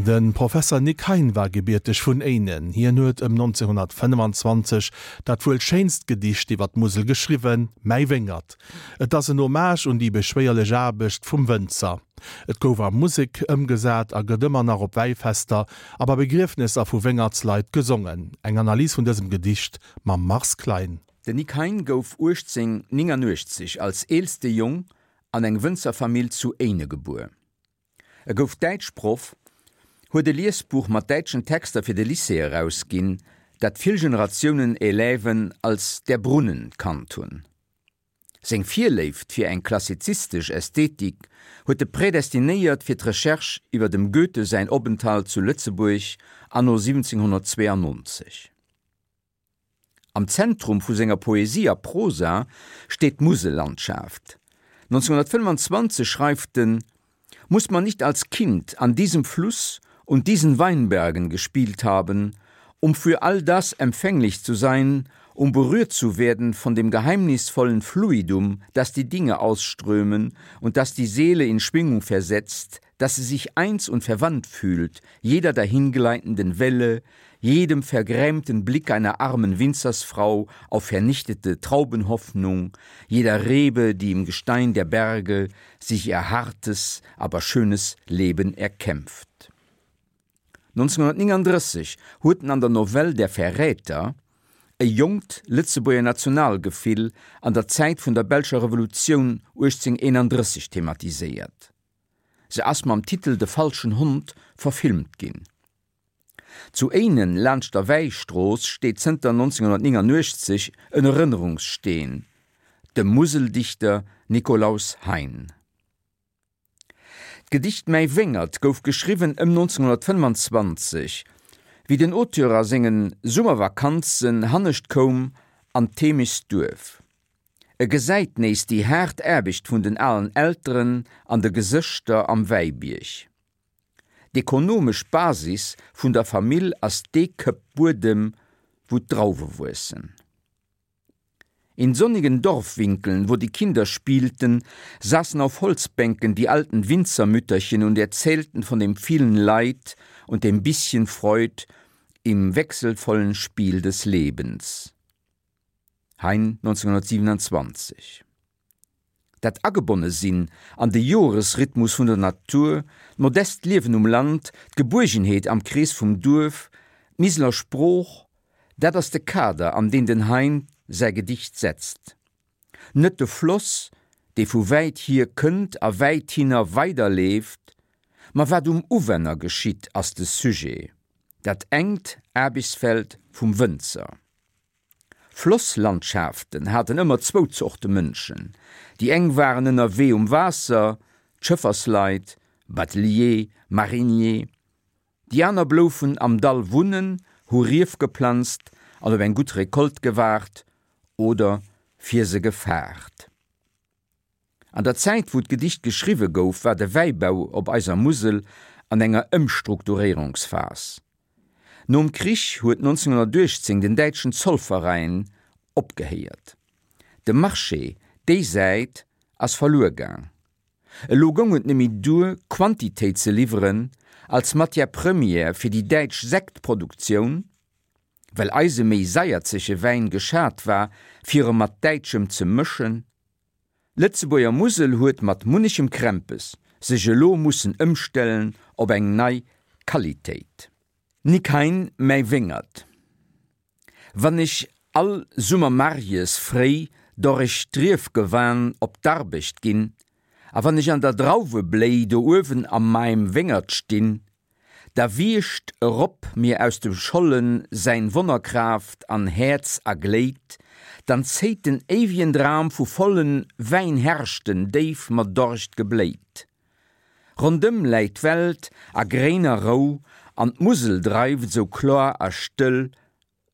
De Professer Nic Hein war gebierteg vun Éinen. Hien huet ëm 1925 dat wuel schéinst Gedicht iwwer d'Musel geschriwwen, Mäi Wéngert. Et ass en Hommage un déi beschwéierlech Aarbecht vum Wënzer. Et gouf a Musek ëmgesat a gëtt ëmmer nach op Wäifester a bei Begriefnesser vu Wéngertsleit gesongen. Eng Analys vun dësem Gedicht mam Mars Klein. Den Nic Hein gouf 1889 als eelste Jong an eng Wënzerfamill zu Éine gebuer. E gouf Däitschproff, huet e Liesbuch mat däitschen Texter fir de Lycée erausginn, dat vill Generatiounen Élèven als Der Brunnen kannt hunn. Seng Virléift fir eng klassizistesch Ästhetik huet e prädestinéiert fir d'Recherche iwwer dem Goethe säin Openthalt zu Lëtzebuerg anno 1792. Am Zentrum vu senger Poesie a Prosa steet d'Musellandschaft. 1925 schreift en, Muss man nicht als Kind an diesem Fluss und diesen Weinbergen gespielt haben, um für all das empfänglich zu sein, um berührt zu werden von dem geheimnisvollen Fluidum, das die Dinge ausströmen und das die Seele in Schwingung versetzt, dass sie sich eins und verwandt fühlt, jeder dahingleitenden Welle, jedem vergrämten Blick einer armen Winzersfrau auf vernichtete Traubenhoffnung, jeder Rebe, die im Gestein der Berge sich ihr hartes, aber schönes Leben erkämpft. 1939 huet en an der Novell Der Verräter e jonkt Lëtzebuerger Nationalgefill an der Zäit vun der belscher Revolutioun 1831 thematiséiert. Se ass mam Titel De falschen Hond verfilmt ginn. Zu Éinen laanscht der Wäistrooss steet zënter 1989 en Erënnerungssteen dem Museldichter Nikolaus Hein. D'Gedicht Mäi Wéngert gouf geschriwwen ëm 1925, wéi den Auteur a senge Summervakanzen hannescht koum an d'Heemechtsduerf. E gesäit nees déi haart Aarbecht vun den alen Elteren an de Gesëschter am Wäibierg. D'ekonomesch Basis vun der Famill ass dee Këpp Buedem, wou d'Drauwe wuessen. In sonnigen Dorfwinkeln, wo die Kinder spielten, saßen auf Holzbänken die alten Winzermütterchen und erzählten von dem vielen Leid und dem bisschen Freud im wechselvollen Spiel des Lebens. Hein 1927. Dat Agebonne-sinn an de Joresrhythmus vun der Natur, d'modest Liewen um Land, d'Gebuergenheet am Krees vum Duerf, d'Miseler Sprooch, dat ass de Kader, an deen den Hein säi Gedicht setzt. Net de Floss, dee vu wäit hier kënnt a wäithinner weiderleeft, ma wat um Uwänner geschitt, ass de Sujet, dat enkt Aarbechtsfeld vum Wënzer. Flosslandschaften haten ëmmer zwou Zorte Mënschen, déi eng waren ënnerwee um Waasser, d'Schëffersleit, Batelier, Marinier, déi aner bloufen am Dall wunnen, hu Rief geplanzt an op eng gutt Recolte gewaart oder fir se gefaart. An der Zäit wou d'Gedicht geschriwwe gouf, war de Wäibau op eiser Musel an enger Ëmstrukturéierungsphas. Nom Krich huet 1918 den däitschen Zollverein opgehéiert. De Marché déi Säit ass verluer gaang. Elo goung et neméi duer Quantitéit ze liwweren als Matière première fir déi däitsch Sektproduktioun, well eise méi saierzege Wäin geschat war fir e mat däitschem ze mëschen. D'Lëtzebuerger Musel huet mat munnechem Krämpes sech elo mussen ëmstellen op eng nei Qualitéit. Nic Hein, Mäi Wéngert. Wann ech all Summer marjes fréi dorrech d'Riefgewan op d'Arbecht ginn, a wann ech an der Drauwebléi do uewen a maim Wéngert stinn, Da wiecht erop mir aus dem Schollen säin Wonnerkraaft an Häerz a Gléid, dann zéit den éiwien Dram vu vollen Wäinherrschten déif mat Dorscht gebléit. Rondëm läit d'Welt a gréiner Rou an d'Musel dreift sou kloar a stëll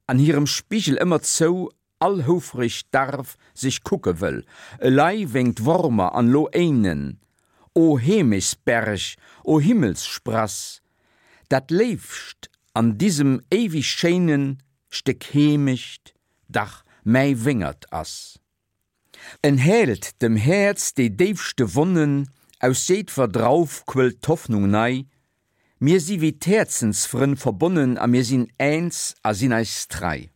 an hirem Spigel ëmmer zou all houfreg Darf sech kucke wëll, elei wénkt Wormer an lo Éinen, o Heemechtsberg, o Himmelssprass, dat Léifst an disem éiwig schéinen Stéck Heemecht dach mäi Wéngert ass. En heelt dem Häerz déi déifste Wonnen, aus jéidwer Drauf quëllt d'Hoffnung nei. Mir si wéi d'Häerzensfrënn verbonnen a mir sinn eens a sinn eis trei.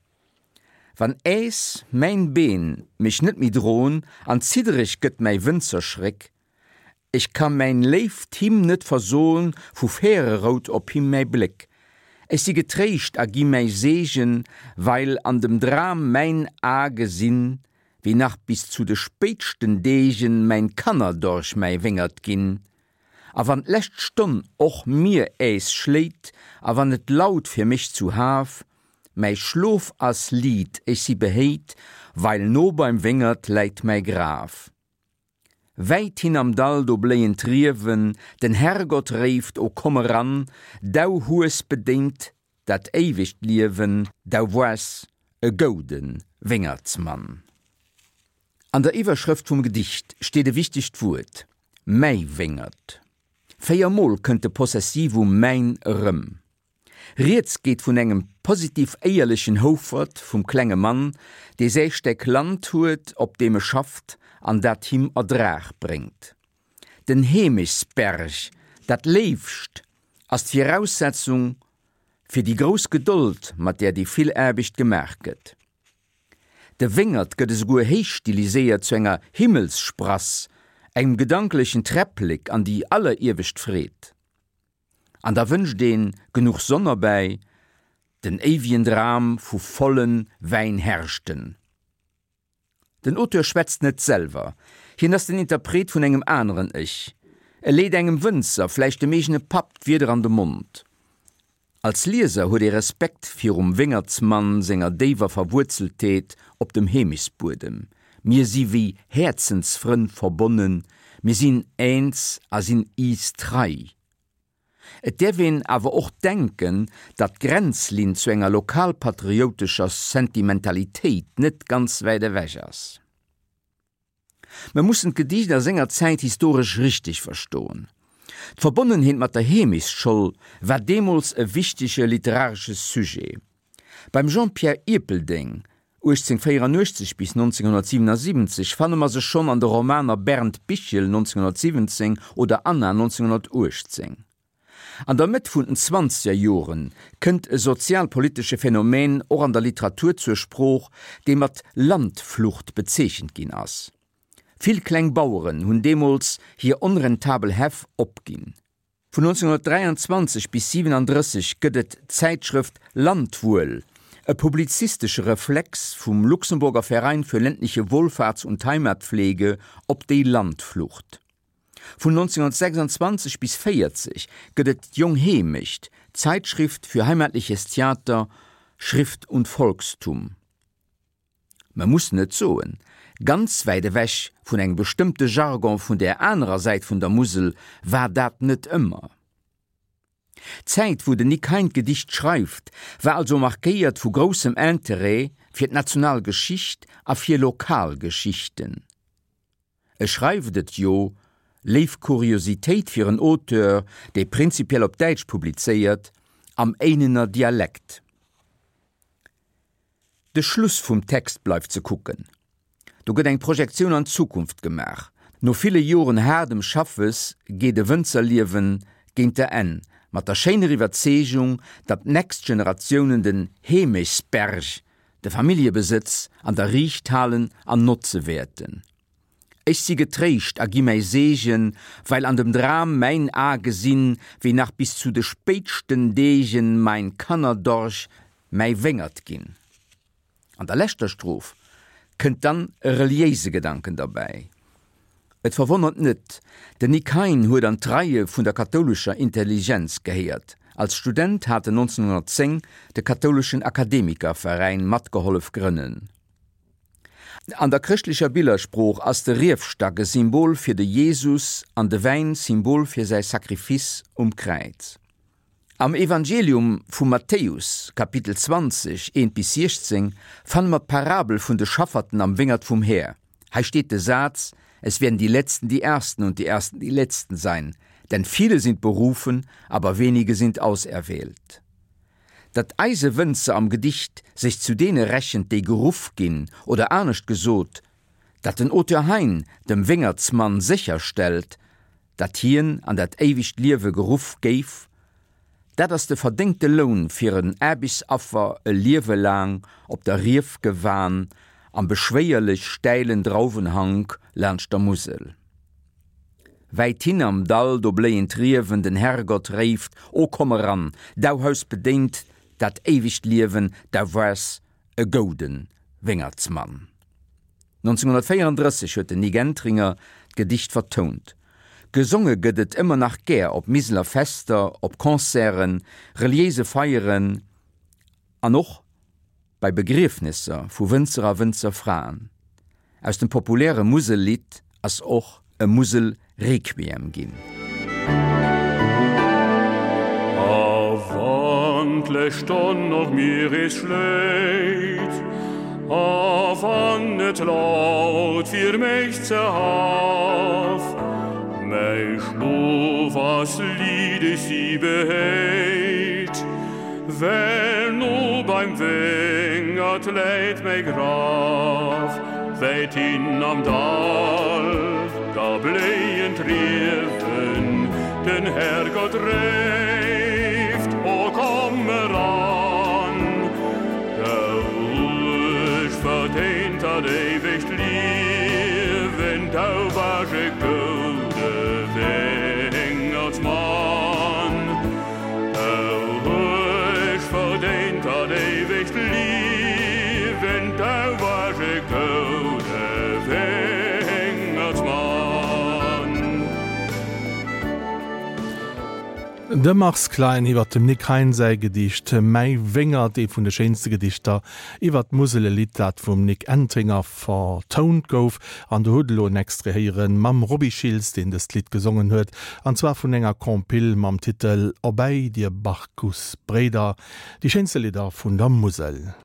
Wann äs mäin Been mech net méi dron an ziddereg gëtt mäi Wënzerschréck, ech ka mäin léift him net verson, vu färe rout op him mäi Bléck. Ech si getréischt a gi mäi Seegen, weil an dem Dram mäin A gesinn, wéi nach bis zu de spéitschten Deegen mäin Kannerdorch mäi Wéngert ginn. A wann d'lescht Stonn och mir äs schléit a wann et laut fir mech zu Haf, mäi Schlof ass liit, ech si behéit, weil no beim Wéngert läit mäi Graf. Wäit hin am Dall do bléien d'Riewen, den Herrgott réift, o komm eran, dau hues bedéint dat éiwegt Liewen, dau woars e goude Wéngertsmann. An der Iwwerschrëft vum Gedicht steet e wichtegt Wuert, mäi Wéngert. Véiermol kënnt de Possessivum mäin erëm. Rieds geet vun engem positiv éierlechen Houfert, vum klenge Mann, dee säi Steck Land huet, op deem e schafft an dat him Erdrag bréngt. Den Heemechtsberg, dat Léifst, ass d'Viraussetzung fir déi grouss Gedold, mat där déi vill Aarbecht gemaach gëtt. De Wéngert gëtt esouguer héich stiliséiert zu enger Himmelssprass, engem gedanklechen Träpplek an déi alleriewescht Freed. An da wënscht een genuch Sonn erbäi, den éiwien Dram vu volle Wäinherrschten. Den Auteur schwätzt net selwer, hien ass den Interpret vun engem aneren Ech. E leet engem Wënzer, vläicht dem eegene Papp, d'Wierder an de Mond. Als Lieser huet ee Respekt virum Wéngertsmann senger déiwer Verwuerzeltheet op dem Heemechtsbuedem. Mir si wéi Häerzensfrënn verbonnen, mir sinn eens a sinn iis trei. Et däerf een awer och denken, datt d'Grenzlinn zu enger lokalpatrioutescher Sentimentalitéit net ganz wäit ewech ass. Mer mussen d'Gedicht a senger Zäit historesch richteg verstoen. D'Verbonnenheet mat der Heemechtsscholl war deemools e wichtege literaresche Sujet. Beim Jean-Pierre Ierpeldeng, 1884 bis 1977, fanne mer se schonn an de Romaner Bernd Bichel, 1917, oder Anna, 1918. An der Mëtt vun den zwanzeger Jore kënnt e sozialpolitesche Phänomen och an der Literatur zur Sprooch, dee mat Landflucht bezeechent ginn ass. Vill kleng Baueren hunn deemools hir onrentabel Häff opginn. Vun 1923 bis 37 gëtt et d'Zäitschrëft Landwuel, e publizistesche Reflex vum Luxemburger Verein für ländliche Wohlfahrts und Heimatpflege op déi Landflucht. Vun 1926 bis 40 gëtt et d'Jong Heemecht, Zeitschrift für heimatliches Theater, Schrift und Volkstum. Mer mussen et soen, ganz wäit ewech vun engem bestëmmte Jargon vun där anerer Säit vun der Musel war dat net ëmmer. D'Zäit, wou den Nick Hein d'Gedicht schreift, war also markéiert vu groussem Interêt fir d'national Geschicht a fir lokal Geschichten. E schreift et jo, léif Kuriositéit fir en Auteur, dee prinzipiell op Däitsch publizéiert, am Éinener Dialekt. De Schluss vum Text bleift ze kucken. Do gëtt eng Projektioun an d'Zukunft gemaach. No ville Joren haardem Schaffes geet e Wënzerliewen géint der Enn, mat der schéiner Iwwerzeegung, datt d'nächst Generatiounen den Heemechtsberg de Familljebesëtz an der Riicht halen an notze wäerten. Ech si getréischt a gi mäi Seegen, weil an dem Dram mäin A gesinn, wéi nach bis zu de spéitschten Deegen mein Kannerdorch mäi Wéngert ginn. An der leschter Stroph kënnt dann e reliéise Gedanken derbäi. Et verwonnert net, den Nick Hein huet an d'Reie vun der kathoulescher Intelligenz gehéiert. Als Student hat en 1910 de Kathouleschen Akademikerveräin matgehollef grënnen. An der chrëschtlecher Billersprooch ass de Riefstack e Symbol fir de Jesus an de Wäin Symbol fir säi Sacrifice um Kräiz. Am Evangelium vum Matthäus, Kapitel 20, 1 bis 16, fanne mer d'Parabel vun de Schafferten am Wéngert vum Här. Hei steet de Saz, Es werden die Letzten die Ersten und die Ersten die Letzten sein, denn viele sind berufen, aber wenige sind auserwählt. Datt eise Wënzer am Gedicht sech zu deene rechent, déi geruff ginn, oder anescht gesot, datt den Auteur Hein dem Wéngertsmann sécherstellt, datt hien an dat éiwegt Liewe geruff géif. Dat ass de verdéngte Loun fir en Aarbechtsaffer e Liewe laang op der Riefgewan am beschwéierlech stäilen Drauwenhank laanscht der Musel. Wäithin am Dall, do bléien d'Riewen, den Herrgott réift, O komm eran, dau hues bedéint dat éiwegt Liewen, dau waars e goude Wéngertsmann. 1934 huet den Nik Entringer d'Gedicht vertount. Gesonge gëtt et ëmmer nach gär op Miseler Fester, op Concerten, reliéise Feieren an och bei Begriefnesser vu Wënzer a Wënzerfraen. Aus dem populäre Musellidd ass och e Musel-Requiem ginn. A wann d'lescht Stonn och mir is schléit, a wann et laut fir mech ze Haf, mäi Schlof ass liddeg si behéit, Well no beim Wéngert läit mäi Graf, wäit hin am Dall, da bléien d'Riewen, den Herrgott réift, O komm eran, dou hues verdéint dat éiwegt Liewen, dou basch e goude Wéngertsmann. De Mars Klein iwwer dem Nick Hein säi Gedicht Mäi Wéngert, ee vun de schéinste Gedichter iwwer d'Musel, e Lidd dat vum Nic Entringer vertount gouf. An do hutt elo en Extrait héieren mam Roby Schiltz, deen dëst Lidd gesongen huet, an zwar vun enger Compile mam Titel Obei dir Barcus Bréider, déi schéinste Lidder vun der Musel.